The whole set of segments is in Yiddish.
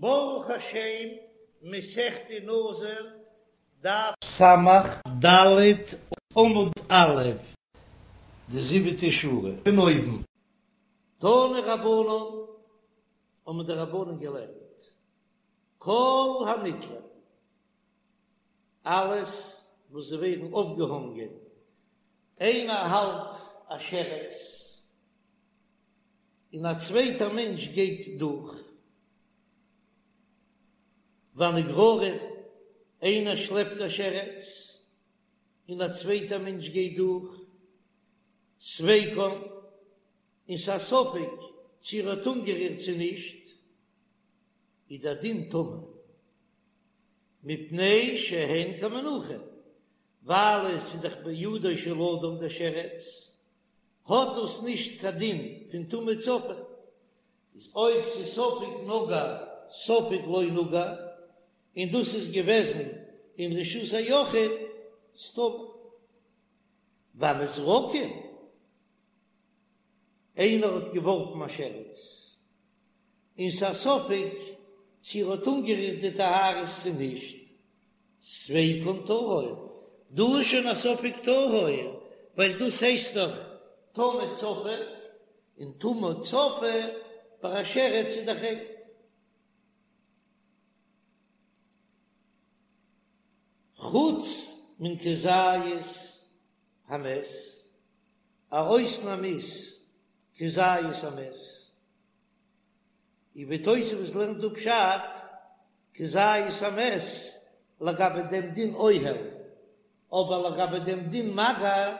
ברוך השם, מסכת נזיר, דף סמך ד' עמוד א', די זיבעטע שורה פון אויבן. תנו רבנן, האבן די רבנן געלערנט, כל הנתלין, אלעס וואס זיי ווערן אויפגעהאנגען, איינער האלט א שרץ און א צווייטער מענטש גייט דורך, והנגררין, איינער שלעפט א שרץ און א צווייטער מענטש גייט דורך, ספיקן, און ס'איז א ספק צו ער האט אנגערירט צו נישט, איז דער דין טמא, מפני שהן כמנוחין, ווייל עס איז דאך בידו של אדם דער שרץ, האט דאס נישט קיין דין פון טומאה צפה, איז אויב ס'איז ספק נגע ספק לא נגע, און דאס איז געוועזן אין רשות היחיד, איז טמא. והנזרקין, איינער האט געווארפן א שרץ, און ס'איז א ספק צו ער האט אנגערירט די טהרות צו נישט, ספיקן טהור, דא איז שוין א ספק טהור, ווייל דאס הייסט דאך טומאה צפה, און טומאה צפה ביי א שרץ איז דאך ריין. חוץ מן כזית המת, א אויסנאם איז כזית המת. און ווי תוספות לערנט דא פשט כזית המת לגבי דעם דין אוהל, אבער לגבי דעם דין מגע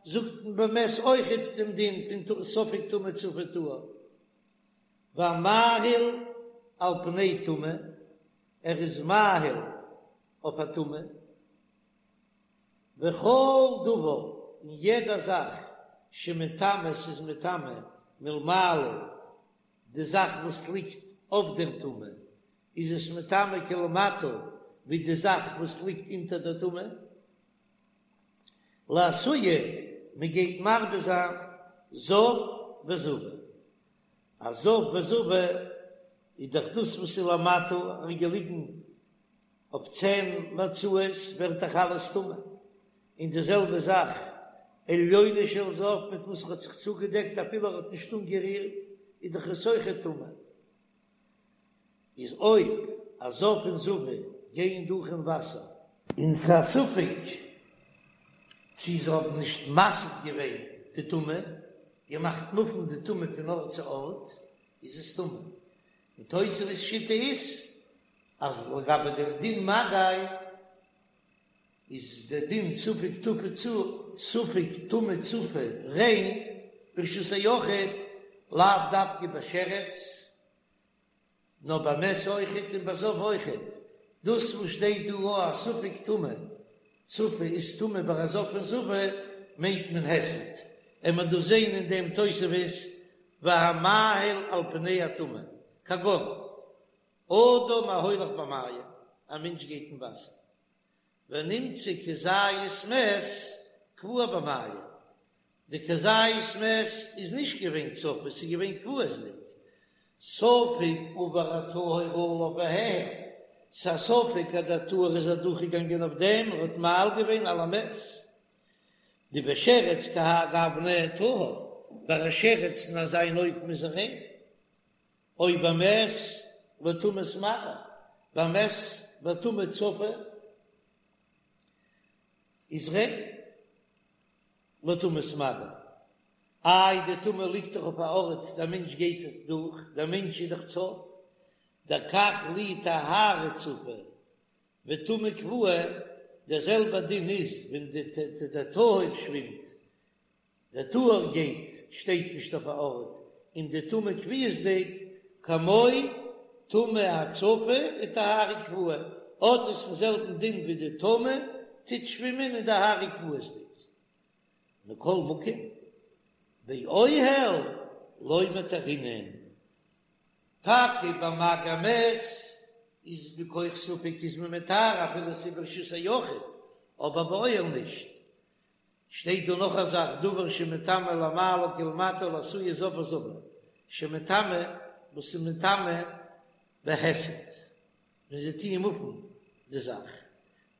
זאגט מען במת אויכעט דעם דין פון ספק טמא צפה טהור, והמאהיל על פני טומאה, ער איז מאהיל אויף א טומאה, וכל דבר און יעדע זאך שמטמא ס'איז מטמא מלמעלה די זאך וואס ליגט אויף דער טומאה איז עס מטמא כלמטה ווי די זאך וואס ליגט אונטער דער טומאה. לאתויי מען גייט מרבה זיין זב וזבה, א זב וזבה איז דאך דאס וואס איז למטה און געליגן אויף צען מצעות ווערט דאך אלעס טמא, און די זעלבע זאך עליונו של זב מיט וואס ער האט זיך צוגעדעקט אפילו ער האט נישט אנגערירט איז דאך עס אויכעט טמא, איז אויב א זב און זבה גייען דורך אין וואסער, און ס'איז א ספק צי זיי האבן נישט מסיט געווען די טומאה, געמאכט מופן די טומאה פון ארט צו ארט, איז עס טמא. און תוספות שיטה איז אז לגבי דעם דין מגע איז דער דין ספק טמא צ ספק טומאה צפה ריין ברשות היחיד לאו דווקא בשרץ נאר במת אויכעט און בזב אויכעט, דאס וואס שטייט דא א אז ספק טומאה צפה איז טמא ביי א זב און זבה מיינט מען היסט, און מען דאס זעהן אין דעם תוספות והמאהיל על פני הטומאה כגון אדם ההולך במים, א מענטש גייט אין וואסער, ונמצא כזית מת קבוע במים, די כזית מת איז נישט געווען צפה, ס'איז געווען קבוע'דיג, ספק עבר הטהור עליו והאהיל, ס'איז א ספק אז דער טהור איז אדורכגעגאנגען אויף דעם און האט מאהיל געווען על המת, דבשרץ כהאי גוונא טהור, ביי א שרץ אין אזא אן אופן איז ער ריין. או במת לטומאת מגע, במת בטומאה צפה איז ריין לטומאת מגע, איי די טומאה ליגט דאך אויף א ארט דער מענטש גייט דאך דורך, דער מענטש איז דאך צף, דקח לי טהרה צפה וטומאה קבועה, דער זעלבער דין איז ווען די טהור שווימט דער טהור גייט שטייט נישט אויף א ארט און די טומאה קביעות'דיג כמו טומאה הצפה וטהרה קבועה האט עס דעם זעלבן דין ווי די טומאה טוט שווימען און טהרה קביעות'דיג מכל מקום באוהל לא מטהרינן טאקע ביי מגע מת איז מכח ספק איז מען מטהר אפילו ס'איז ברשות היחיד אבער באוהל נישט שטייט דא נאך א זאך דבר שמטמא למעלה כלמטה לאתויי זב וזבה שמטמא וואס איז מטמא בהיסט. ווען זיי טוען מופן די זאך,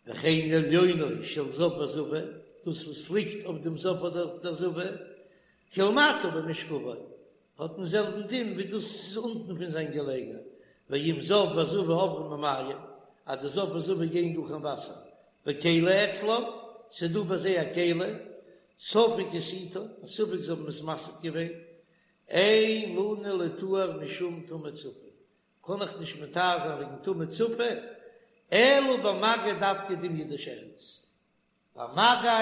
וכן עליונו של זב וזבה, דאס וואס ליגט אויף דעם זב אדער דער זבה, כלמטה במשכבו, האט דעם זעלבן דין ווי דאס איז אונטן פון זיין געלעגער, ואם זב וזבה עוברים במים, אז די זב וזבה גייען דורך אין וואסער, וכלי אצלם, ס'איז דא ביי זיי א כלי, ספק הסיטה, א ספק זיי האבן עס מסיט געווען, אין לנו לטהר משום טומאה צפה, קען איך נישט מטהר זיין וועגן טומאה צפה, אלא במגע דווקא דומיא דשרץ, ביי מגע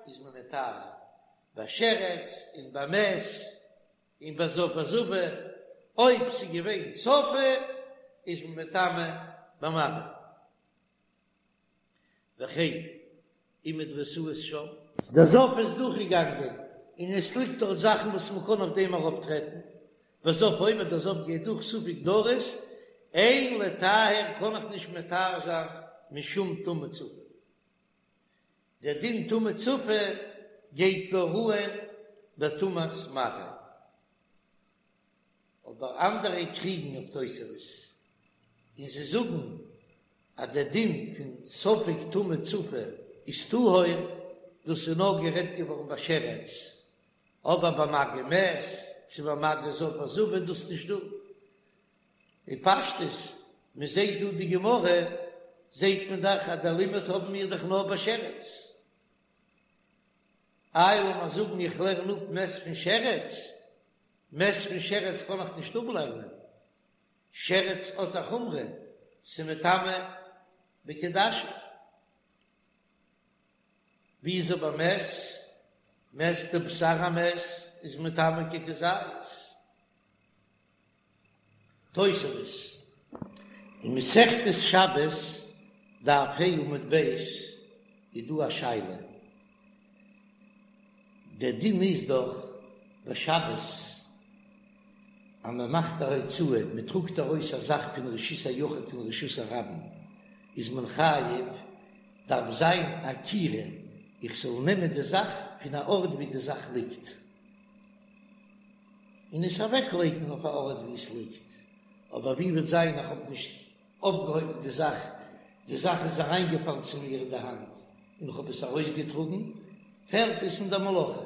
איז מען מטהר, ביי שרץ און ביי מת און ביי זב וזבה, אויב ס'איז געווען צפה איז מען מטמא במגע. וכן אם מדרסות שם. דער זב איז דורכגעגאנגען און עס ליגט דארט זאכן וואס מען קען אויף דעם ארויפטרעטן, והזב עובר דער זב גייט דורך ספק דרס, אין לטהר קען איך נישט מטהר זיין משום טומאה צפה. דער דין טומאה צפה גייט נאר אן בטומאת מגע. אבער אנדערע קריגן אויף תוספות און זיי זאגן אז דער דין פון ספק טומאה צפה איז טהור, דאס איז נאר גערעדט געווארן ביי שרץ, אבער ביי מגע מת צו ביי מגע זב וזבה איז דאס נישט דא. בפשטות, מען זעט דא די גמרא, זעט מען דאך אז דער לימוד האבן מיר דאך נאר ביי שרץ. איי לאמיר זאגן איך לערן אפ מת פון שרץ, מת פון שרץ קען איך נישט אפלערנען, שרץ האט א חומרא, ס'מטמא בכעדשה. ווי איז אבער מת? מת די בשר המת איז מטמא ככזית. תוספות אין מסכת שבת דף ה' עמוד ב' איז דא א שאלה, דער דין איז דאך ביי שבת אז מען מאכט א הוצאה, מען טראגט ארויס א זאך פון רשות היחיד אין רשות הרבים, איז מען חייב, דארף זיין עקירה, איך זאל נעמען די זאך פון א ארט ווי די זאך ליגט. און עס אוועקלייגן אויף א ארט וואו עס ליגט, אבער ווי וועט זיין איך האב נישט אויפגעהויבן די זאך, די זאך איז אריינגעפאלן צו מיר אין די האנט און איך האב עס ארויסגעטראגן, פעלט עס אין דער מלאכה.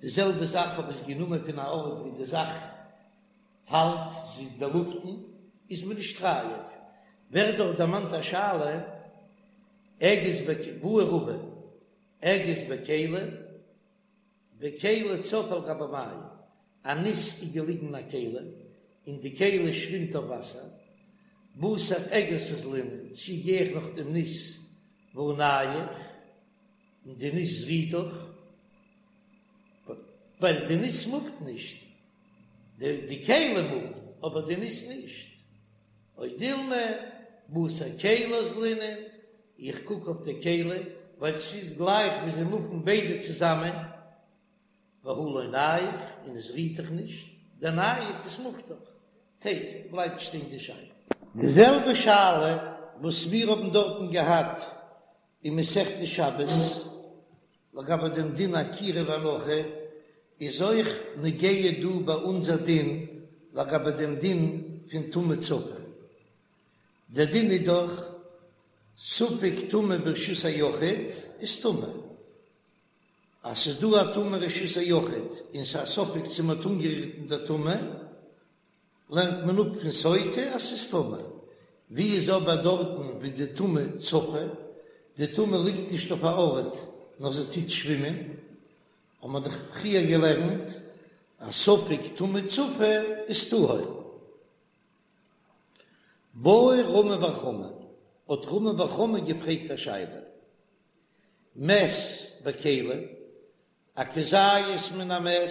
די זעלבע זאך האב עס גענומען פון א ארט וואו די זאך פאלט, זי איז אין דער לופטן, איז מען נישט חייב. ווערט דאך דערמאנט א שאלה, אגוז בעי רבא, אגוז בכלי, וכלי צף על גבי מים, א ניס איז געליגן אין א כלי, און די כלי שווימט אויף וואסער, בתר אגוז אזלינן, צי גיי איך נאך דעם ניס והא נייח, און די ניס רוט דאך, ווייל די ניס מופט נישט, די כלי מופט, אבער די ניס נישט, או דילמא, בתר כלי אזלינן, איך קוק אויף די כלי, ווייל ס'איז גלייך ווי זיי מופן ביידע צוזאמען, והא לא נייח, און עס רוט דאך נישט, דנייד עס מופט דאך, תיקו, בלייבט שטיין די שאלה. די זעלבע שאלה וואס מיר האבן דארטן געהאט אין מסכת שבת לגבי דעם דין עקירה והנחה, איז אויך נוגע דא ביי אונזער דין לגבי דעם דין פון טומאה צפה. דער דין איז דאך ספק טומאה ברשות היחיד איז טמא. אז ס'איז דא א טומאה רשות היחיד און ס'איז א ספק צו מ'האט אנגערירט אין דער טומאה, לערנט מען אפ פון סוטה אז ס'איז טמא. ווי איז אבער דארטן ווי די טומאה צפה, די טומאה ליגט נישט אויף א ארט נאר זי טוט שווימען, האט מען דאך פריער געלערנט אז ספק טומאה צפה איז טהור. בעי רמי בר חמא, האט רמי בר חמא געפרעגט א שאלה, מת בכלי, א כזית מן המת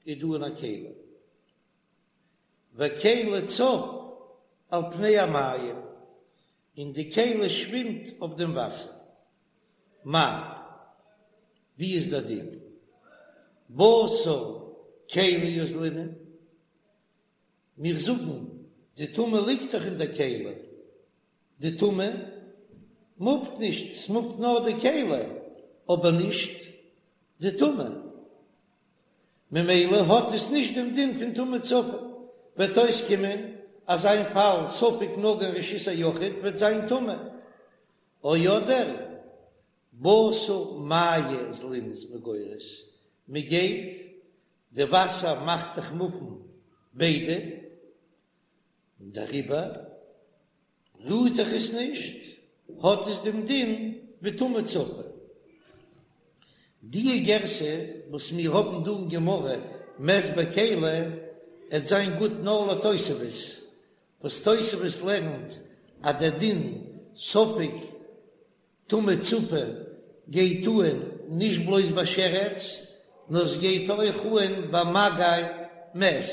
איז דא אין א כלי, וכלי צף על פני המים, און די כלי שווימט אויף דעם וואסער, מהו, ווי איז דער דין? בתר כלי אזלינן, מיר זאגן, די טומאה ליגט דאך אין דער כלי, די טומאה מופט נישט, ס'מופט נאר די כלי, אבער נישט די טומאה, ממילא האט עס נישט דעם דין פון טומאה צפה, וועט אויסקומען. אזא פאל ספק נגע אין רשות היחיד וועט זיין טמא, או אדער בתר מיא אזלינן איז מען גורס, מען גייט, די וואסער מאכט דאך מופן ביידע, און דעריבער רוהט דאך עס נישט, האט עס דעם דין ווי טומאה צפה. די גירסא וואס מיר האבן דא אין גמרא מת בכלי עט זיין גוט נאר לתוספות, וואס תוספות לערנט אז דער דין ספק טומאה צפה גייט אהן נישט בלויז ביי שרץ, נאר עס גייט אויך אהן ביי מגע מת.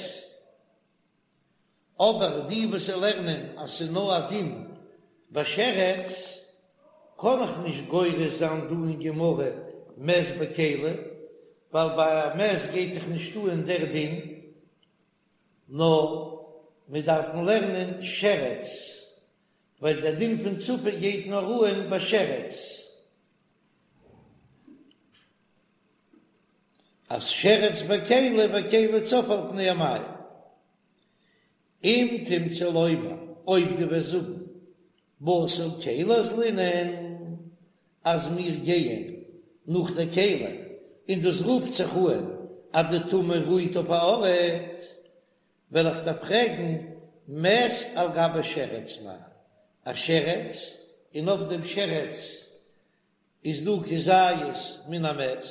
אבער די וואס לערנען אז ס'איז נאר א דין ביי שרץ, קען איך נישט גורס זיין דא אין גמרא מת בכלי, ווייל ביי א מת גייט דאך נישט אהן דער דין, נאר מיר דארפן לערנען שרץ, ווייל דער דין פון צפה גייט נאר אהן ביי שרץ. אז שרץ בכלי וכלי צף על פני המים. אם תמצא לומר, אויב דו וועסט זאגן בתר כלי אזלינן אז מיר גייען נאך דער כלי, און דאס רופט זיך אהן אז די טומאה רוהט אויף א ארט, וועל איך דיר פרעגן מת על גבי שרץ מאי, א שרץ און אויף דעם שרץ איז דא כזית מן המת?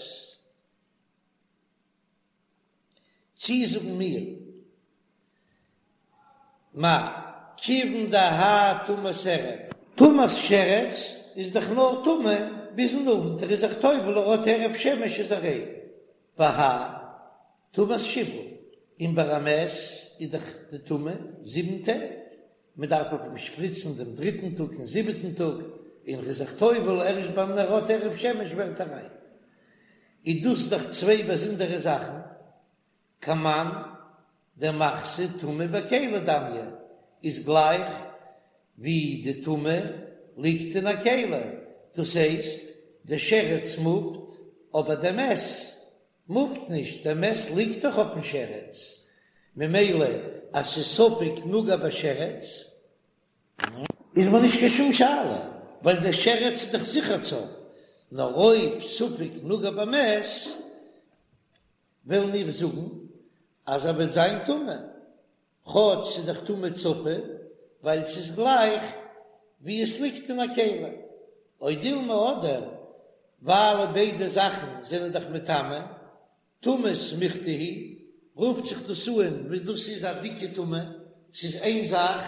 צי זאגן מיר מאי כיוון דהאי טומאת ערב. טומאת שרץ איז דאך נאר טמא ביזן אוונט, ער איז זיך טובל ער האט הערב שמש איז ער ריין, והאי טומאת שבעה, און ביי א מת איז דאך די טומאה זיבן טעג, מען דארף אויף אים שפריצן דעם דריטן טאג און זיבעטן טאג, און ער איז זיך טובל ערשט ביים ער האט הערב שמש ווערט ער ריין. איז דאס דאך צוויי באזונדערע זאכן, כמאן דמחתא טומאה בכלי דמיא איז גלייך ווי די טומאה ליגט אין א כלי, דאס הייסט די שרץ מופט אבער די מת מופט נישט, דער מת ליגט דאך אויפן שרץ, ממילא אז ס'איז ספק נגע בשרץ איז מיר נישט קיין שום שאלה, ווייל דער שרץ איז דאך זיכער צף, נאר אויב ספק נגע במת וועלן מיר זאגן אז ער וועט זיין טמא, כאטש ס'איז דאך טומאה צפה, ווייל ס'איז גלייך ווי עס ליגט אין א כלי, או דילמא אדער ווייל ביידע זאכן זענען דאך מטמא, טומאה סמיכתא היא, רופט זיך דאס אן ווי דאס איז א דיקע טומאה, ס'איז איין זאך,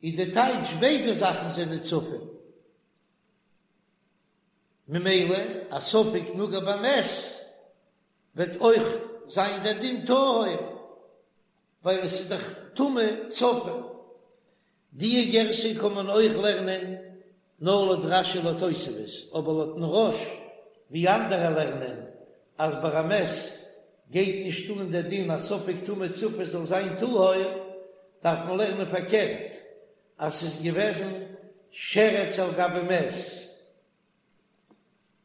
איז די טייטש ביידע זאכן זענען צפה, ממילא א ספק נגע במת וועט אויך זיין דער דין טהור, ווייל עס איז דאך טומאה צפה. די גירסא קען מען אויך לערנען נאר לויט רש"י לויט תוספות, אבער לויטן רא"ש ווי אנדערע לערנען אז ביי א מת גייט נישט אן דער דין אז ספק טומאה צפה זאל זיין טהור, דארף מען לערנען פארקערט אז ס'איז געוועזן שרץ על גבי מת,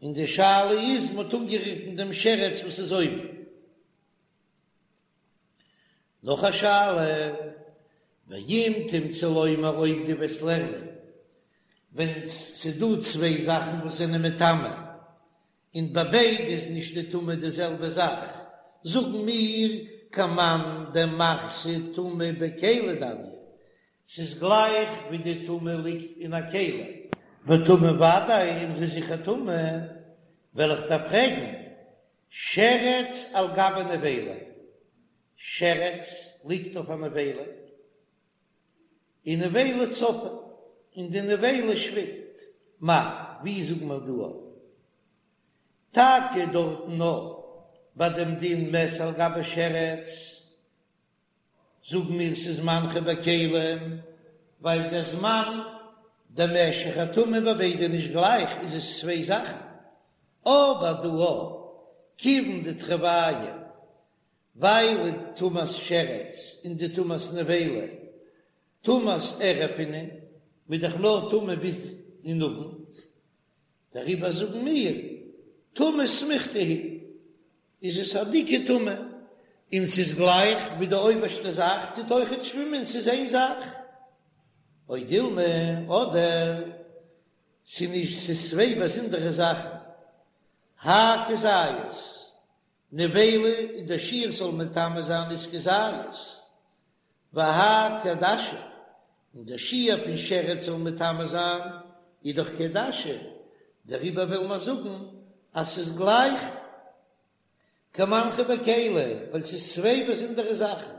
און די שאלה איז מ'האט אנגערירט אין דעם שרץ וואס איז אויבן. נאך א שאלה, ואם תמצא לומר אויב דו וועסט לערנען ווען ס'דא צוויי זאכן וואס זענען מטמא, און ביי ביידע איז נישט די טומאה די זעלבע זאך, זאגן מיר כמאן דמחתא טומאה בכלי דמיא, ס'איז גלייך ווי די טומאה ליגט אין א כלי. וטמא ודאי און ר'איז זיכער טמא, וועל איך דיר פרעגן, שרץ על גבי נבילה, שרץ ליגט אויף א נבילה, און נבילה צפה, און די נבילה שווימט, מאי, ווי זאגן מיר דא אויף? טאקע דארטן נאר ביי דעם דין מת על גבי שרץ, זאגן מיר ס'איז מנחו בכלים, ווייל דער זמן דער משך הטומאה ביי ביידע נישט גלייך איז עס צוויי זאכן, אבער דא א כיוון דתרוייהו ווייל די טומאת שרץ און די טומאת נבילה טומאת ערב אינון מ'איז דאך נאר טמא ביז אין אוונט, דעריבער זאגן מיר טומאה סמיכתא היא איז עס א דיקע טומאה. און ס'איז גלייך ווי די אויבערשטע זאך טוט אויכעט שווימען, ס'איז איין זאך. או דילמא, אדער ס'איז נישט, ס'איז צוויי באזונדערע זאכן. האי כזית, נבילה איז דער שיעור ס'זאל מטמא זיין איז כזית, והאי כעדשה, און דער שיעור פון שרץ זאל מטמא זיין איז דאך כעדשה, דעריבער וויל מען זאגן אז ס'איז גלייך כמנחא בכלי, ווייל ס'איז צוויי באזונדערע זאכן.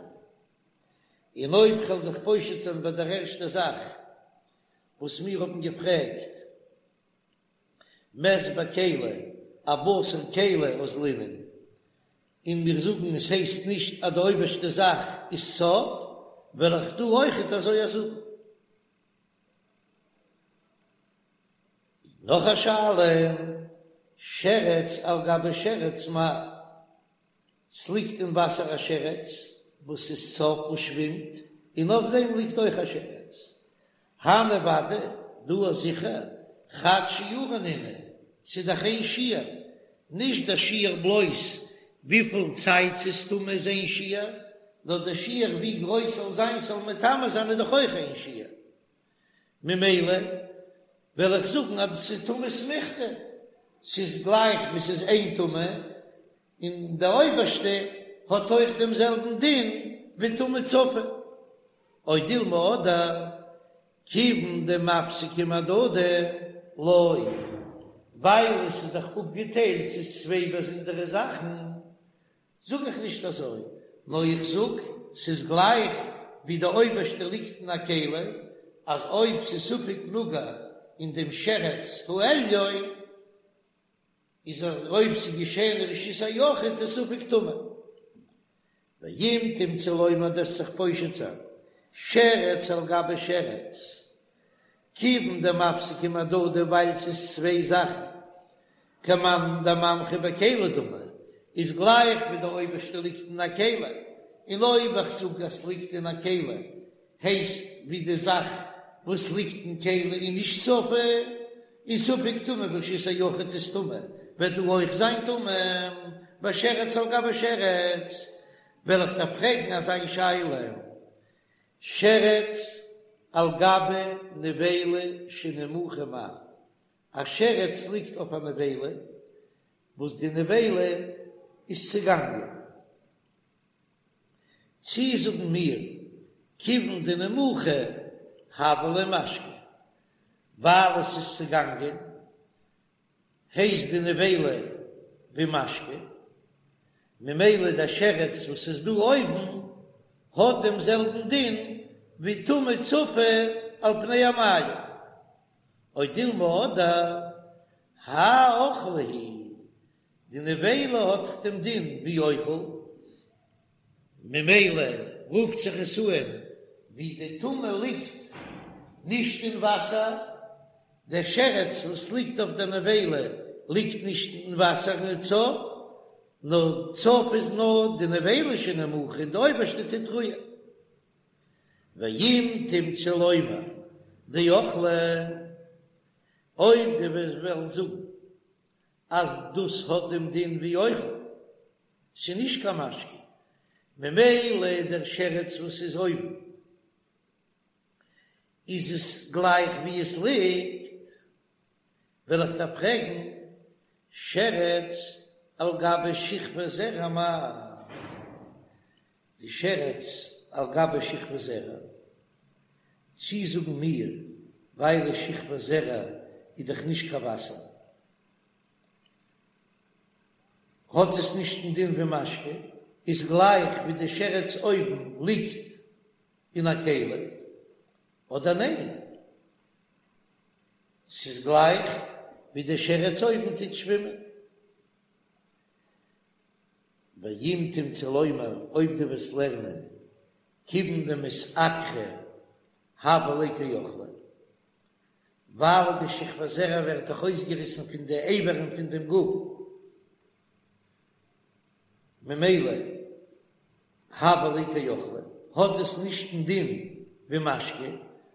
און אויב כ'וועל זיך פושט זיין ביי דער ערשטער זאך וואס מיר האבן געפרעגט, מת בכלי, אבשר כלי אזלינן, און מיר זאגן עס הייסט נישט אז די אויבערשטע זאך איז צף, וועל איך דא אויכעט אזוי זאגן. נאך א שאלה, שרץ על גבי שרץ מהו? ס'ליגט אין וואסער א שרץ וואס איז צף וואס שווימט, און אויף דעם ליגט אויך א שרץ. הני ודאי, דא איז זיכער, חד שיעורא נינהו, ס'איז דאך איין שיעור, נישט דער שיעור בלויז וויפיל צייט ס'איז טמא איז איין שיעור, נאר דער שיעור ווי גרויס ס'זאל זיין ס'זאל מטמא זיין איז דאך אויך איין שיעור. ממילא וועל איך זאגן אז ס'איז טומאה סמיכתא, ס'איז גלייך ווי ס'איז איין טומאה, און די אויבערשטע האט אויך דעם זעלבן דין ווי טומאה צפה. או דילמא אדער כיוון דמפסקי מהדדי לא, ווייל עס איז דאך אפגעטיילט ס'איז צוויי באזונדערע זאכן, זאג איך נישט אזוי, נאר איך זאג ס'איז גלייך ווי די אויבערשטע ליגט אין א כלי, אז אויב ס'איז ספק נגע אין דעם שרץ העליון, איז אויב ס'איז געשען אין רשות היחיד איז ספק טמא. ואם תמצא לומר דו'סט זיך פושט זיין שרץ על גבי שרץ, כיוון דמפסקי מהדדי ווייל ס'איז צוויי זאכן, כמאן דמנחא בכלי דמי, איז גלייך ווי די אויבערשטע ליגט אין א כלי, און אויב איך זאג אז ס'ליגט אין א כלי הייסט ווי די זאך וואס ליגט אין כלי איז נישט צפה, און ספק טומאה ברשות היחיד איז טמא, וועט דא אויך זיין טמא בשרץ על גבי שרץ, וועל איך דיר פרעגן אזא שאלה, שרץ על גבי נבילה שנימוחה מהו, א שרץ ליגט אויף א נבילה וואס די נבילה איז צעגאנגען. צי זאגן מיר כיוון דנימוחה הוה ליה משקה, ווייל עס איז צעגאנגען הייסט די נבילה ווי משקה, ממילא דער שרץ וואס איז דא אויבן האט דעם זעלבן דין ווי טומאה צפה על פני המים, או דילמא אדער האי אוכלא הוא די נבילה האט דעם דין ווי אוכל, ממילא רופט זיך עס אן ווי די טומאה ליגט נישט אין וואסער, דער שרץ וואס ליגט אויף דער נבילה ליגט נישט אין וואסער און איז צף, נאר צף איז נאר די נבילה שנימוחה און די אויבערשטע טוט רוען. ואם תמצא לומר דאוכלא, אויב דו וועסט וועלן זאגן אז דאס האט דעם דין ווי אוכל, ס'איז נישט קיין משקה, ממילא דער שרץ וואס איז אויבן איז עס גלייך ווי עס ליגט, וועל איך דיר פרעגן, שרץ על גבי שכבת זרע מהו? די שרץ על גבי שכבת זרע, צי זאגן מיר ווייל שכבת זרע איז דאך נישט קיין וואסער, האט עס נישט דעם דין ווי משקה, איז גלייך ווי די שרץ אויבן ליגט אין א כלי, אדער ניין? ס'איז גלייך ווי די שרץ אויבן טוט שווימען. ואם תמצא לומר, אויב דו וועסט לערנען כיוון דמתעקרא הוה ליה כאוכלא, ווייל די שכבת זרע ווערט דאך אויסגעריסן פון די אברים פון דעם גוף, ממילא הוה ליה כאוכלא, האט עס נישט דעם דין ווי משקה,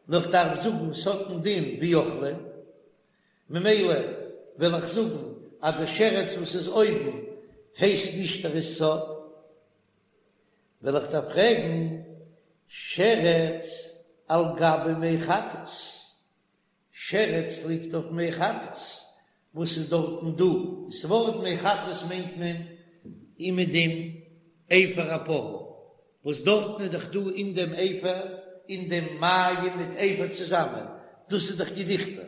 נאר כ'דארף זאגן ס'האט דעם דין ווי אוכלא, ממילא וועל איך זאגן אז די שרץ וואס איז אויבן הייסט נישט ער איז צף. וועל איך דיר פרעגן, שרץ על גבי מי חטאת, שרץ ליגט אויף מי חטאת, וואס איז דארטן דא? דאס ווארט מי חטאת מיינט מען אומעדום אפר הפרה, וואס דארטן איז דאך דא אין דעם אפר, אין דעם מים מיט אפר צוזאמען, דאס איז דאך געדיכטער,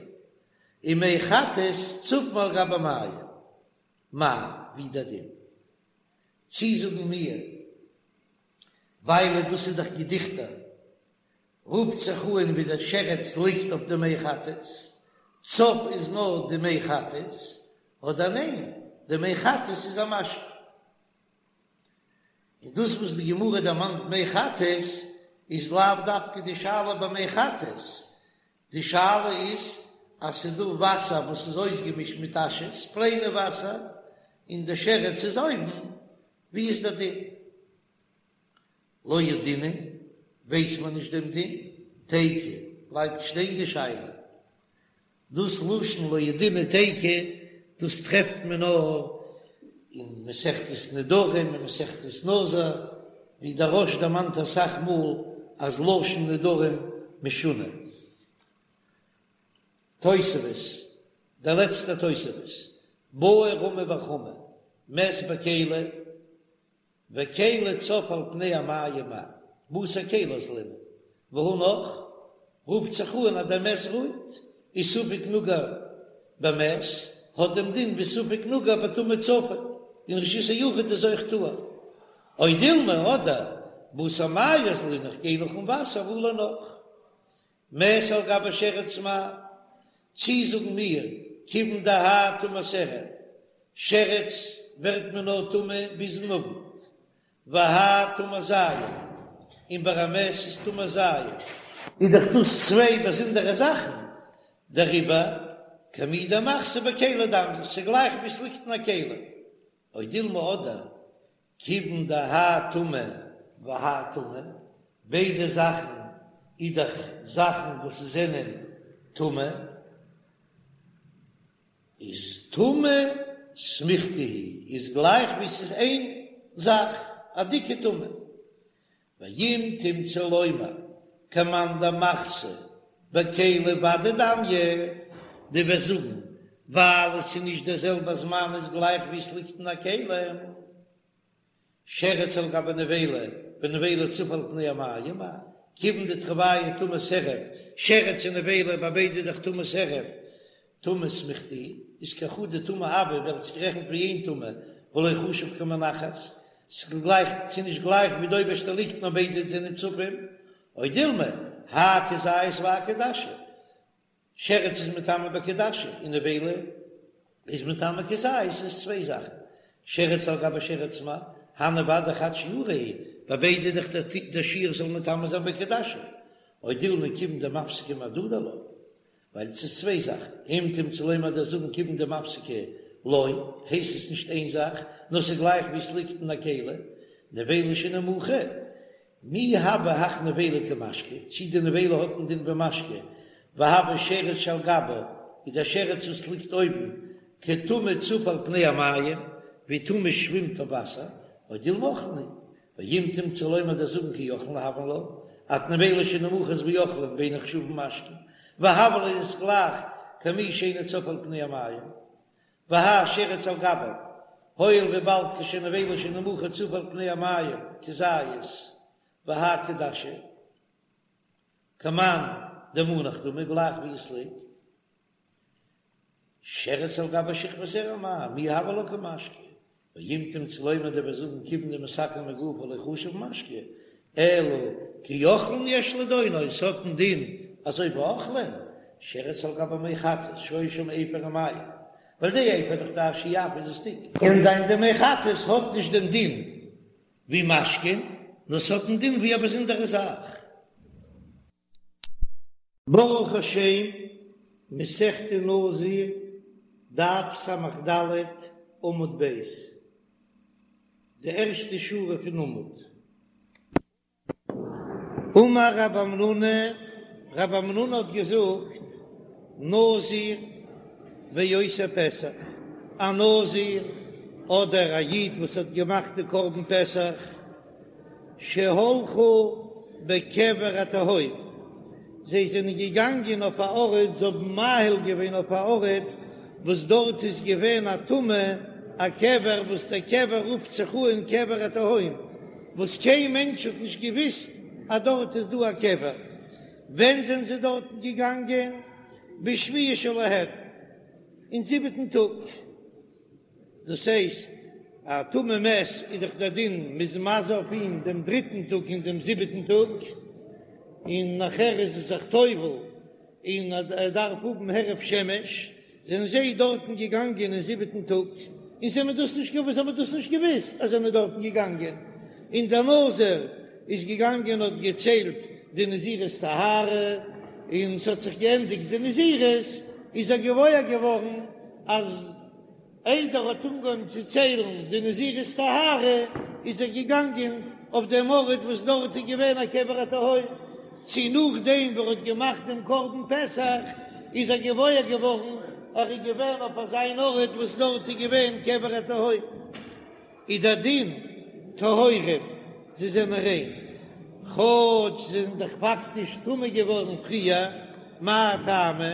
און מי חטאת צפין על גבי מים, מאי, ווי דער דין? צי זאגן מיר, ווייל דאס איז דאך געדיכטער, רופט זיך אן ווי דער שרץ ליגט אויף די מי חטאת, צף איז נאר די מי חטאת, אדער ניין, די מי חטאת איז א משקה. און דאס וואס די גמרא דערמאנט מי חטאת איז לאו דווקא די שאלה ביי מי חטאת, די שאלה איז אז ס'איז דא וואסער וואס איז אויסגעמישט מיט אשעס, פלעינע וואסער, און די שרץ איז אויבן, ווי איז דער דין? לא ידעינן, ווייס מען נישט דעם דין, תיקו, בלייבט שטיין די שאלה. דאס לשון לא ידעינן תיקו, דאס טרעפט מען נאר אין מסכת נדרים און מסכת נזיר, ווי דער רא"ש דערמאנט אסאך מאל אז לשון נדרים משונה. תוספות, דער לעצטער תוספות, בעי רמי בר חמא, מת בכלי, וכלי צף על פני המים מהו, בתר כלי אזלינן, והא נח, רופט זיך אן אז דער מת רוהט, איז ספק נגע במת, האט דעם דין ווי ספק נגע בטומאה צפה, אין רשות היחיד איז אויך טהור. או דילמא אדער, בתר מיא אזלינן איך גיי נאכן וואסער והא לא נח. מת על גבי שרץ מהו, צי זאגן מיר, כיוון דהאי טומאת ערב, שרץ ווערט מען נאר טמא ביזן אוונט, והאי טומאת ז', און ביי א מת איז טומאת ז'. איז דאך דאס צוויי באזונדערע זאכן, דעריבער כמי דמחתא בכלי דמיא, ס'גלייך ווי ס'ליגט אין א כלי, או דילמא אדער כיוון דהאי טומאה והאי טומאה, ביידע זאכן איז דאך זאכן וואס זענען טמא, איז טומאה סמיכתא היא, איז גלייך ווי ס'איז איין זאך, א דיקע טומאה. ואם תמצא לומר כמאן דמחתא בכלי ודאי דמיא, דו וועסט זאגן ווייל עס איז נישט דער זעלבער זמן איז גלייך ווי עס ליגט אין א כלי, שרץ על גבי נבילה ונבילה צפה על פני המים מהו, כיוון דתרוייהו טומאת ערב, שרץ און נבילה ביי ביידע איז דאך טומאת ערב, טומאה סמיכתא איז כחדא טומאה הויא ווערט עס גערעכנט ווי איין טומאה ולא חשיב כמונחת, ס'איז גלייך ס'איז נישט גלייך ווי די אויבערשטע ליגט נאר ביידע זענען צפים, או דילמא האי כזית והאי כדשא, שרץ איז מטמא בכעדשה און נבילה איז מטמא כזית איז צוויי זאכן, שרץ על גבי שרץ מהו, הני ודאי חד שיעורא הוא, ביי ביידע איז דאך דער שיעור זאל מטמא זיין בכעדשה, או דילמא כיוון דמפסקא מהדדי לא. ווייל עס איז צוויי זאכן, אם תמצא לומר דו'סט זאגן כיוון דמפסקא לא, הייסט עס נישט איין זאך, נאר ס'איז גלייך ווי עס ליגט אין א כלי, נבילה שנמוכה, מי הוי הך נבילה כמשקה, צי די נבילה האט א דין ווי משקה, והוי שרץ שעל גבה, איז דער שרץ וואס ליגט אויבן, כטומאה צפה על פני המים, ווי טומאה שווימט אויף וואסער, או דילמא אוכלין היא, ואם תמצא לומר דו'סט זאגן כאוכלין הויין לה, אז נבילה שנמוכה איז ווי אוכלין ואינן נחשבין משקין, והוה ליה איז גלייך כמי שאינו צף על פני המים, והאי שרץ על גביו, הואיל וויבאלד כשנבילה שנמוכה צפה על פני המים כזית, והאי כדשא, כמאן דמונח דמי גלייך ווי עס ליגט. שרץ על גבי שכבת זרע מהו, מי הוי לה כמשקה, ואם תמצא לומר דו וועסט זאגן כיוון דמתקן מגופו לא חשיב משקה, אלא כאוכלין יש לדונו, עס האט א דין אזוי ווי אוכלין, שרץ על גבי מי חטאת שהיה שם אפר ומים, ווייל די אפר דאך די אשי אף איז עס דיק. קען זיין די מי חטאת האט נישט דעם דין ווי משקין, נאר ס'האט א דין ווי א באזונדערע זאך. ברוך השם, מסכת נזיר, דף ס"ד, עמוד ב', די ערשטע שורה פון עמוד. אמר רב המנונא, רב המנונא האט געזאגט, נזיר ועושה פסח, א נזיר אדער א איד וואס האט געמאכט די קרבן פסח. שהלכו בקבר התהום, זיי זענען געגאנגען אויף א ארט, זיי האבן מאהיל געווען אויף א ארט וואס דארט איז געווען א טומאה, א קבר וואס דער קבר רופט זיך אן קבר התהום, וואס קיין מענטש האט נישט געוויסט אז דארט איז דא א קבר. ווען זענען זיי דארטן געגאנגען? בשביעי שלהן, אין זיבעטן טאג. דאס הייסט, א טמא מת איז דאך דער דין מ'איז מזה אויף אים דעם דריטן טאג און דעם זיבעטן טאג, און נאכער איז ער זיך טובל און ער דארף האבן הערב שמש, זענען זיי דארטן געגאנגען אין זיבעטן טאג, און זיי האבן דאס נישט געוואוסט, זיי האבן דאס נישט געוואוסט אז זיי זענען דארטן געגאנגען, און דער נזיר איז געגאנגען האט געציילט די נזירות טהרה, און ס'האט זיך געענדיגט די נזירות, איז ער געוואויר געווארן אז איידער ער האט אנגעהויבן צו ציילן די נזירות טהרה, איז ער געגאנגען אויף דעם ארט וואס דארט איז געווען א קבר התהום, צי נאכדעם ווי ער האט געמאכט דעם קרבן פסח איז ער געוואויר געווארן ער איז געווען אויף אזא ארט וואס דארט איז געווען קבר התהום. איז דער דין טהורים, זיי זענען ריין, כאטש זיי זענען דאך פאקטיש טמא געווארן פריער, מאי טעמא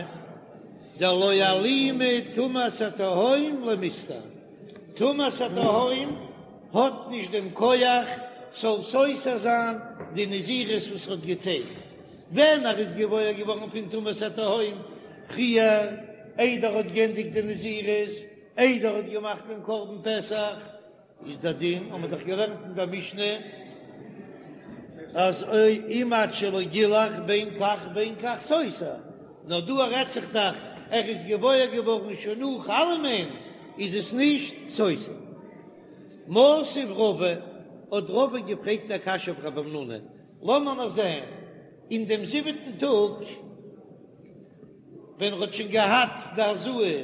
דלא אלימא טומאת התהום למיסתר, טומאת התהום האט נישט דעם כח ס'זאל סותר זיין די נזירות וואס ער האט געציילט ווען ער איז געוואויר געווארן פון טומאת התהום פריער איידער ער האט גענדיגט די נזירות. איידער ער האט געמאכט דעם קרבן פסח, איז דער דין, האבן מיר דאך געלערנט אין דער משנה, אז אם עד שלא גילח בין כך ובין כך סותר, נאר דא רעדט זיך דאך ער איז געוואויר געווארן שוין נאך אלעמען, איז עס נישט סותר. מתיב רבא, האט רבא געפרעגט א קשיא אויף רב המנונא, לאמיר נאר זען, אין דעם זיבעטן טאג, ווען ער האט שוין געהאט די הזאה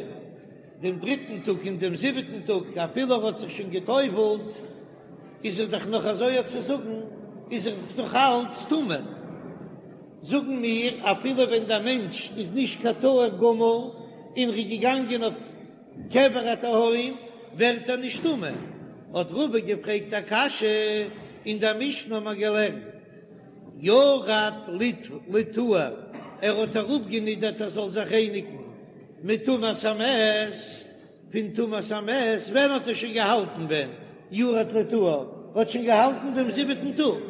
דעם דריטן טאג און דעם זיבעטן טאג, אפילו ער האט זיך שוין גע'טובל'ט, איז ער דאך נאך אזוי צו זאגן, איז ער דאך נאך אלץ טמא. זאגן מיר, אפילו ווען דער מענטש איז נישט קיין טהור גמור און ער איז געגאנגען אויף קבר התהום, ווערט ער נישט טמא. האט רבא געפרעגט א קשיא, אין דער משנה האט מען געלערנט, ירד לטהר, ער האט אראפגענידערט ער זאל זיך רייניגן מטומאת המת, פון טומאת המת, ווען האט ער שוין געהאלטן ווען ירד לטהר האט שוין געהאלטן דעם זיבעטן טאג,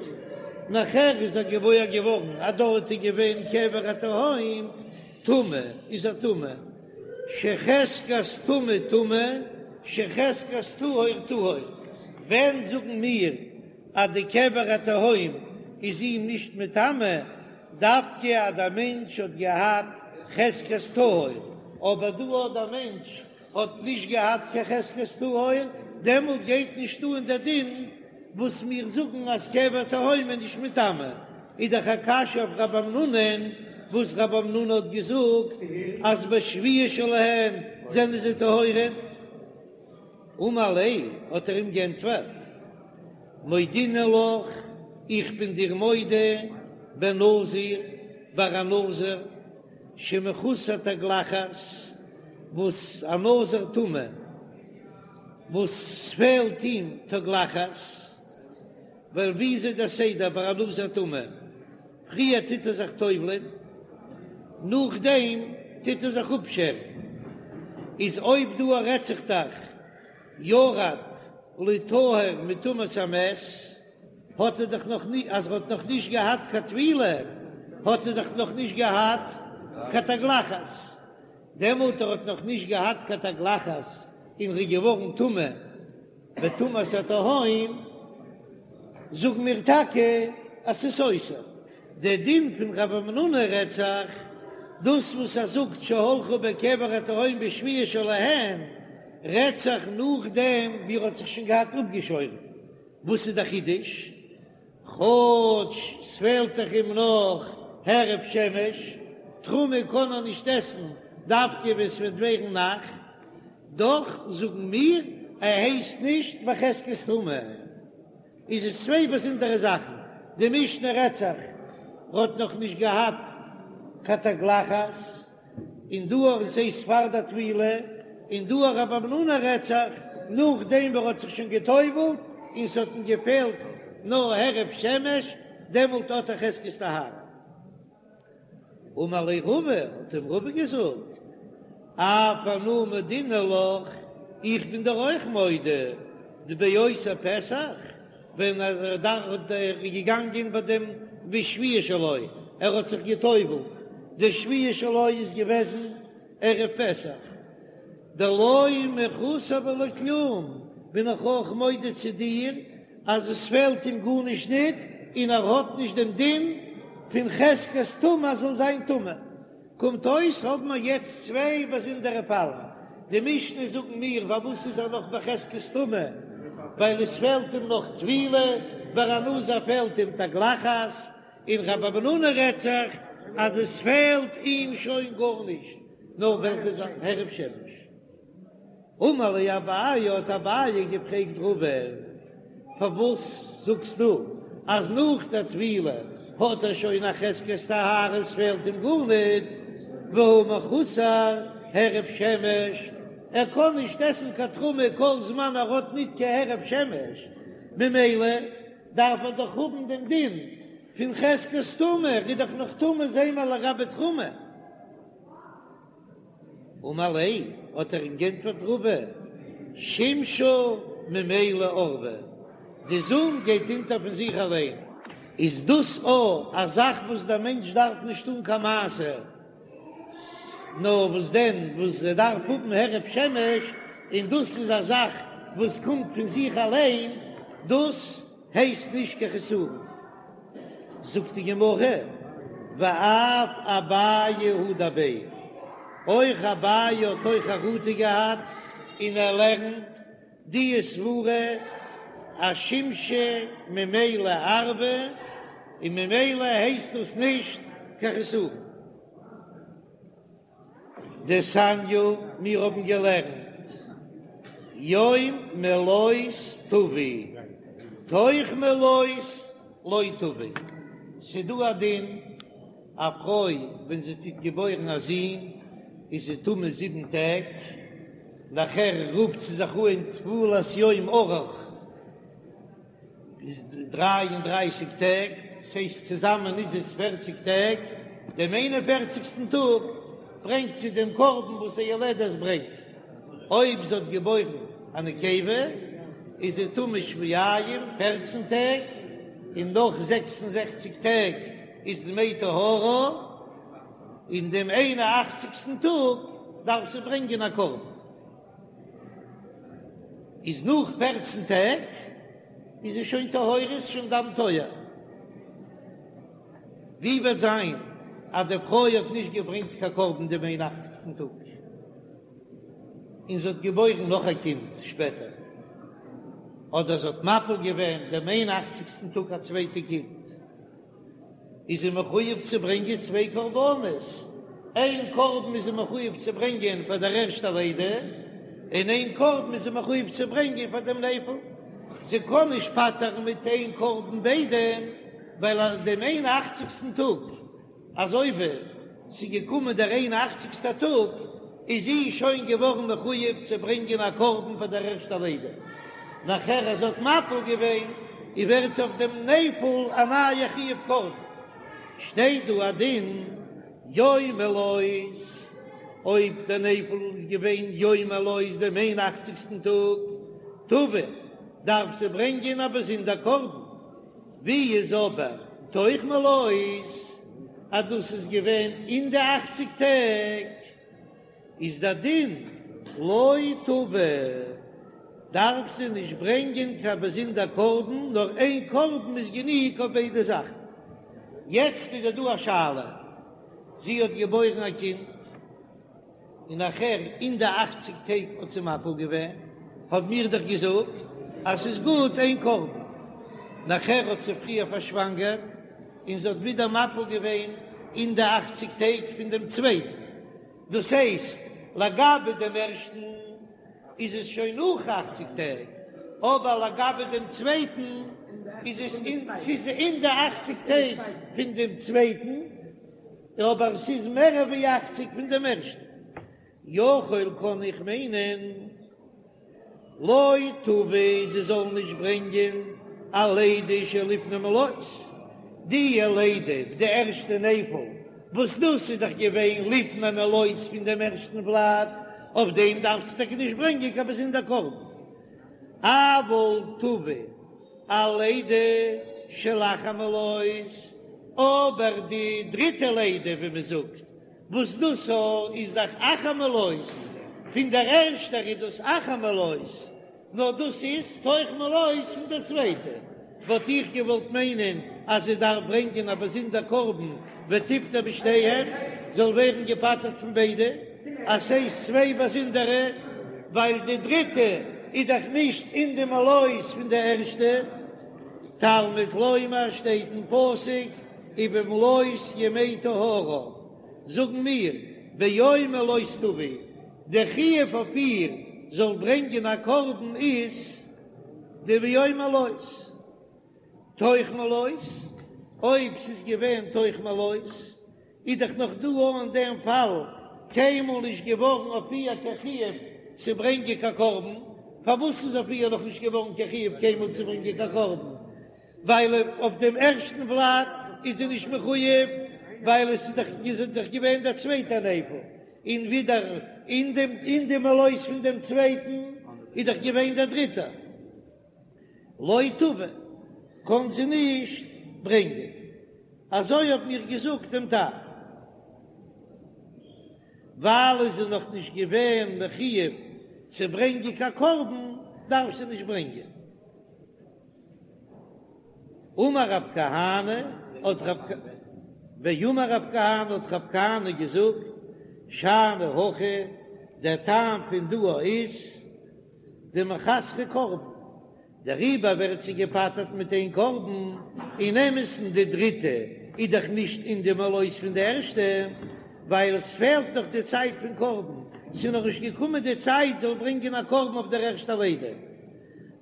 נאכער איז ער געוואויר געווארן אז דארט איז געווען קבר התהום, טמא איז ער טמא, שחזקת טמא טמא, שחזקת טהור טהור, ווען זאגן מיר אז די קבר התהום איז אים נישט מטמא, דווקא אז דער מענטש האט געהאט חזקת טהור, אבער דא אז דער מענטש האט נישט געהאט קיין חזקת טהור, דעמאלט גייט נישט אן דער דין וואס מיר זאגן אז קבר תהום איז נישט מטמא, איז דאך א קשיא אויף רב המנונא'ן, וואס רב המנונא האט געזאגט אז בשביעי שלהן זענען זיי טהורים. אמר ליה, האט ער אים גענטפערט, מודינא לך, איך בין דיר מודה, בנזיר, ביי א נזיר, שמחוסר תגלחת, וואס א נזיר טמא, וואס פעלט אים תגלחת, ווייל ווי איז דער סדר ביי א נזיר טמא, פריער טוט ער זיך טובל'ען, נאכדעם טוט ער זיך אפשערן, איז אויב דא רעדט זיך דאך ירד לטהר מטומאת המת, האט ער דאך נאך נישט, אז ער האט נאך נישט געהאט קיין טבילה, האט ער דאך נאך נישט געהאט קיין תגלחת, דעמאלט ער האט נאך נישט געהאט קיין תגלחת און ר'איז געווארן טמא בטומאת התהום, זאגן מיר טאקע אז ס'איז סותר. דער דין פון רב המנונא רעדט זיך דאס וואס ער זאגט שהלכו בקבר התהום בשביעי שלהן רעדט זיך נאכדעם ווי ער האט זיך שוין געהאט אפגעשוירן, וואס איז דער חידוש? כאטש ס'פעלט דאך אים נאך הערב שמש, תרומה קען ער נישט עסן דווקא ווען ס'וועט ווערן נאכט, דאך זאגן מיר ער הייסט נישט בחזקת טומאה. איז עס צוויי באזונדערע זאכן, די משנה רעדט זיך ער האט נאך נישט געהאט קיין תגלחת, און דא אויך ס'הייסט פאר די טבילה, און דא אויך רב המנונא רעדט זיך נאכדעם ווען ער האט זיך שוין גע'טובל'ט און ס'האט אים געפעלט. נאר הערב שמש, דעמאלט האט ער חזקת טהרה. אמר ליה רבא, האט אים רבא געזאגט, אף אנא מודינא לך, איך בין דיר אויך מודה, דבאותו פסח, ווען ער איז געגאנגען ביי דעם בשביעי שלו, ער האט זיך גע'טובל'ט, די שביעי שלו איז געוועזן ערב פסח, דלא מחוסר ולא כלום, בין איך אויך מודה צו דיר אז עס פעלט אים גארנישט ניט און ער האט נישט דעם דין פון חזקת טומאה אז זאל זיין טמא. קומט אויס האבן מיר יעצט צוויי באזונדערע פאלן, די משנה זאגן מיר פארוואס איז ער נאך בחזקת טומאה, ווייל עס פעלט אים נאך טבילה, ביי א נזיר פעלט אים תגלחת, און רב המנונא רעדט זיך אז עס פעלט אים שוין גארנישט, נאר וועלכע זאך? הערב שמש. אמר ליה אביי, האט אביי געפרעגט רבא, פארוואס זאגסטו אז נאך דער טבילה האט ער שוין א חזקת טהרה עס פעלט אים גארניט, והא מחוסר הערב שמש, ער קען נישט עסן קיין תרומה כל זמן ער האט ניט קיין הערב שמש, ממילא דארף ער דאך האבן דעם דין פון חזקת טומאה, ער איז דאך נאך טמא זעהן מיר לגבי תרומה. אמר ליה, האט ער אים גענטפערט רבא, שמשא ממילא ערבא, די זון גייט אונטער פון זיך אליין. איז דאס א א זאך וואס דער מענטש דארף נישט טון קיין מעשה, נאר וואס דען וואס ער דארף האבן הערב שמש, און דאס איז א זאך וואס קומט פון זיך אליין, דאס הייסט נישט קיין חסרון. זאגט די גמרא, ואף אביי הדר ביה, אויך אביי האט אויך חרטה געהאט און ער לערנט די סברה אז שמשא ממילא ערבא און ממילא הייסט דאס נישט קיין חסרון. דתניא, מיר האבן געלערנט יום מלאת תביא, תוך מלאת לא תביא. ס'דא א דין, א פרוי ווען זי טוט געבוירן א זון איז זי טמא זיבן טעג, נאכער רופט זי זיך אן טבולת יום ארוך, איז דריי און דרייסיג טעג, ס'הייסט צוזאמען איז עס פערציג טעג, דעם איין און פערציגסטן טאג ברענגט זי דעם קרבן וואס א יולדת ברענגט, אויב זי האט געבוירן א נקבה איז זי טמא שבועיים, פערצן טעג, און נאך זעקס און זעכציג טעג איז דמי טהרה, און דעם איין און אכציגסטן טאג דארף זי ברענגען א קרבן. איז נאך פערצן טעג איז זי שוין טהורה, איז שוין דם טוהר. ווי וועט זיין אז די פרוי האט נישט געברענגט קיין קרבן דעם איין אכציגסטן טאג, און זי האט געבוירן נאך א קינד שפעטער, אדער זי האט מפיל געווען דעם איין אכציגסטן טאג א צווייטע קינד? איז זי מחויב צו ברענגען צוויי קרבנות, איין קרבן איז זי מחויב צו ברענגען פאר דער ערשטער לידה, און איין קרבן איז זי מחויב צו ברענגען פאר דעם נפל. זי קען נישט פטר'ן מיט איין קרבן ביידע, ווייל אז דעם איין אכציגסטן טאג אזוי ווי ס'איז געקומען דער איין אכציגסטער טאג, איז זי שוין געווארן מחויב צו ברענגען א קרבן פאר דער ערשטער לידה. נאכער אז זי האט מפיל געווען, איז ווערט זי אויף דעם נפל א נייע חיוב קרבן. שטייט דא א דין יום מלאת, אויב דער נפל איז געווען יום מלאת דעם איין אכציגסטן טאג, תביא, דארף זי ברענגען א באזונדער קרבן. ווי איז אבער תוך מלאת אז דאס איז געווען אין די אכציג טעג, איז דער דין לא תביא, דארף זי נישט ברענגען קיין באזונדער קרבן, נאר איין קרבן איז גענוג אויף ביידע זאכן. יעצט איז דא א שאלה, זי האט געבוירן א קינד, און נאכער אין די אכציג טעג האט זי מפיל געווען, האבן מיר דאך געזאגט אז ס'איז גוט איין קרבן, נאכער האט זי פריער פארשוואנגערט און זי האט ווידער מפיל געווען אין די אכציג טעג פון דעם צווייטן, דאס הייסט לגבי דעם ערשטן איז עס שוין נאך אכציג טעג, אבער לגבי דעם צווייטן איז עס ס'איז אין די אכציג טעג פון דעם צווייטן. אבער ס'איז מער ווי אכציג פון דעם ערשטן. יכול קען איך מיינען לא תביא זי זאל נישט ברענגען. אלידה שלפני מלאות, די לידה, די ערשטע נפל, וואס דאס איז דאך געווען לפני מלאות פון דעם ערשטן ולד, אויף דעם דארפסטו טאקע נישט ברענגען קיין באזונדער קרבן. אבל תביא אלידה שלאחר מלאות, אבער די דריטע לידה ווי מען זאגט, וואס דאס איז דאך אחר מלאות, פון דער ערשטער איז דאס אחר מלאות, נאר דאס איז תוך מלאות פון דער צווייטע, וואלט איך געוואלט מיינען אז זי דארף ברענגען א באזונדער קרבן ותפטר בשתיהן, זאל ווערן געפטר'ט פון ביידע, אז ס'איז צוויי באזונדערע, ווייל די דריטע איז דאך נישט אין די מלאות פון די ערשטע. תלמוד לומר שטייט אין פסוק ובמלאות ימי טהרה, זאגן מיר ביום מלאות תביא, די חיוב אויף איר זאל ברענגען א קרבן איז די ביום מלאות, תוך מלאות, אויב ס'איז געווען תוך מלאות איז דאך נאך דא אין דעם פאל קיינמאל נישט געווארן אויף איר קיין חיוב צו ברענגען קיין קרבן, פארוואס איז אויף איר נאך נישט געווארן קיין חיוב קיינמאל צו ברענגען קיין קרבן? ווייל אויף דעם ערשטן ולד איז זי נישט מחויב, ווייל עס איז דאך איז דאך געווען דער צווייטער נפל, און ווידער אין דעם אין די מלאות פון דעם צווייטן איז דאך געווען דער דריטער. לא תביא, קען זי נישט ברענגען. אזוי האב מיר געזאגט דעם טעם. ווייל איז זי נאך נישט געווען מחויב צו ברענגען קיין קרבן, דארף זי נישט ברענגען. אמר רב כהנא, האט רב ואמר רב כהנא האט רב כהנא געזאגט, שאני הכא, דער טעם פון דא איז דמחסרא קרבן, דעריבער ווערט זי געפטר'ט מיט איין קרבן, אין אמת'ן די דריטע איז דאך נישט אין די מלאות פון די ערשטע, ווייל עס פעלט נאך די צייט פון קרבן, ס'איז נאך נישט געקומען די צייט זאל ברענגען א קרבן אויף דער ערשטער לידה.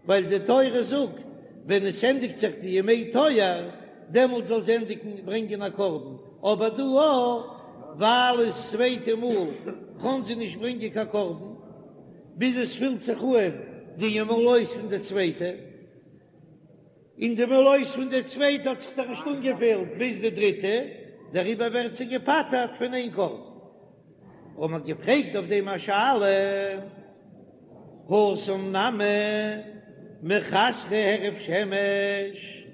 ווייל די תורה זאגט ווען עס ענדיגט זיך די ימי טוהר דעמאלט זאל זי ענדיגן ברענגען א קרבן, אבער דא ווייל עס צווייטע מאל קען זי נישט ברענגען קיין קרבן ביז עס פילט זיך אן די מלאות פון די צווייטע, און די מלאות פון די צווייטע האט זיך דאך נישט אנגעפילט ביז די דריטע, דעריבער ווערט זי געפטר'ט פון איין קרבן. האט מען געפרעגט אויף דעם א שאלה, התם נמי מחסרא הערב שמש,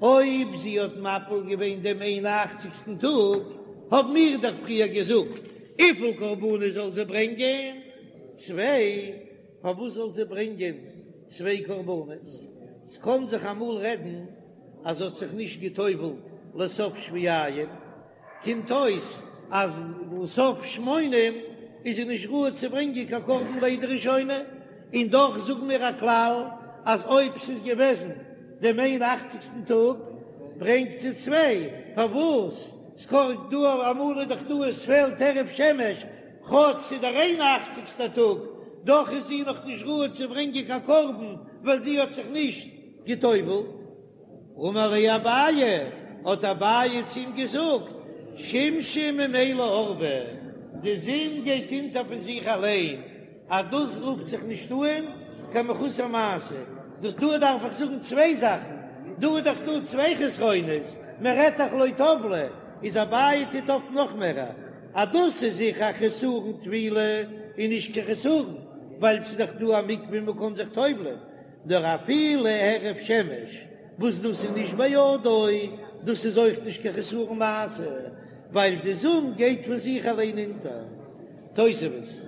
אויב זי האט מפיל געווען דעם איין און אכציגסטן טאג, האבן מיר דאך פריער געזאגט, וויפיל קרבנות זאל זי ברענגען? צוויי. פארוואס זאל זי ברענגען צוויי קרבנות? ס'קען זיך אמאל רעדן אז זי האט זיך נישט גע'טובל'ט לסוף שבועיים, קומט אויס אז לסוף שמונים איז זי נישט ראוי צו ברענגען קיין קרבן לידה ראשונה, און דאך זאגן מיר א כלל אז אויב ס'איז געוועזן דעם איין אכציגסטן טאג ברענגט זי צוויי, פארוואס? ס'קאן דא אמאל איז דאך דא עס פעלט הערב שמש, כאטש ס'איז דער איין אכציגסטער טאג, דאך איז זי נאך נישט ראוי צו ברענגען קיין קרבן ווייל זי האט זיך נישט גע'טובל'ט. אמר ליה אביי, האט אביי צו אים געזאגט, שמשא ממילא ערבא, די זון גייט אונטער פון זיך אליין, אז דאס רופט זיך נישט אן קיין מחוסר מעשה, דאס דא דארף איך זאגן צוויי זאכן, דא איז דאך דא צוויי חסרונות, מען רעדט דאך לא טבלה, איז אביי טוט אויף נאך מער, אז דאס איז זיכער א חסרון טבילה און נישט קיין חסרון, ווייל ס'איז דאך דא א מקווה און מ'קען זיך טובל'ען. נאר אפילו הערב שמש וואס דאס איז נישט בידו, דאס איז אויך נישט קיין חסרון מעשה, ווייל די זון גייט פון זיך אליין אונטער. תוספות.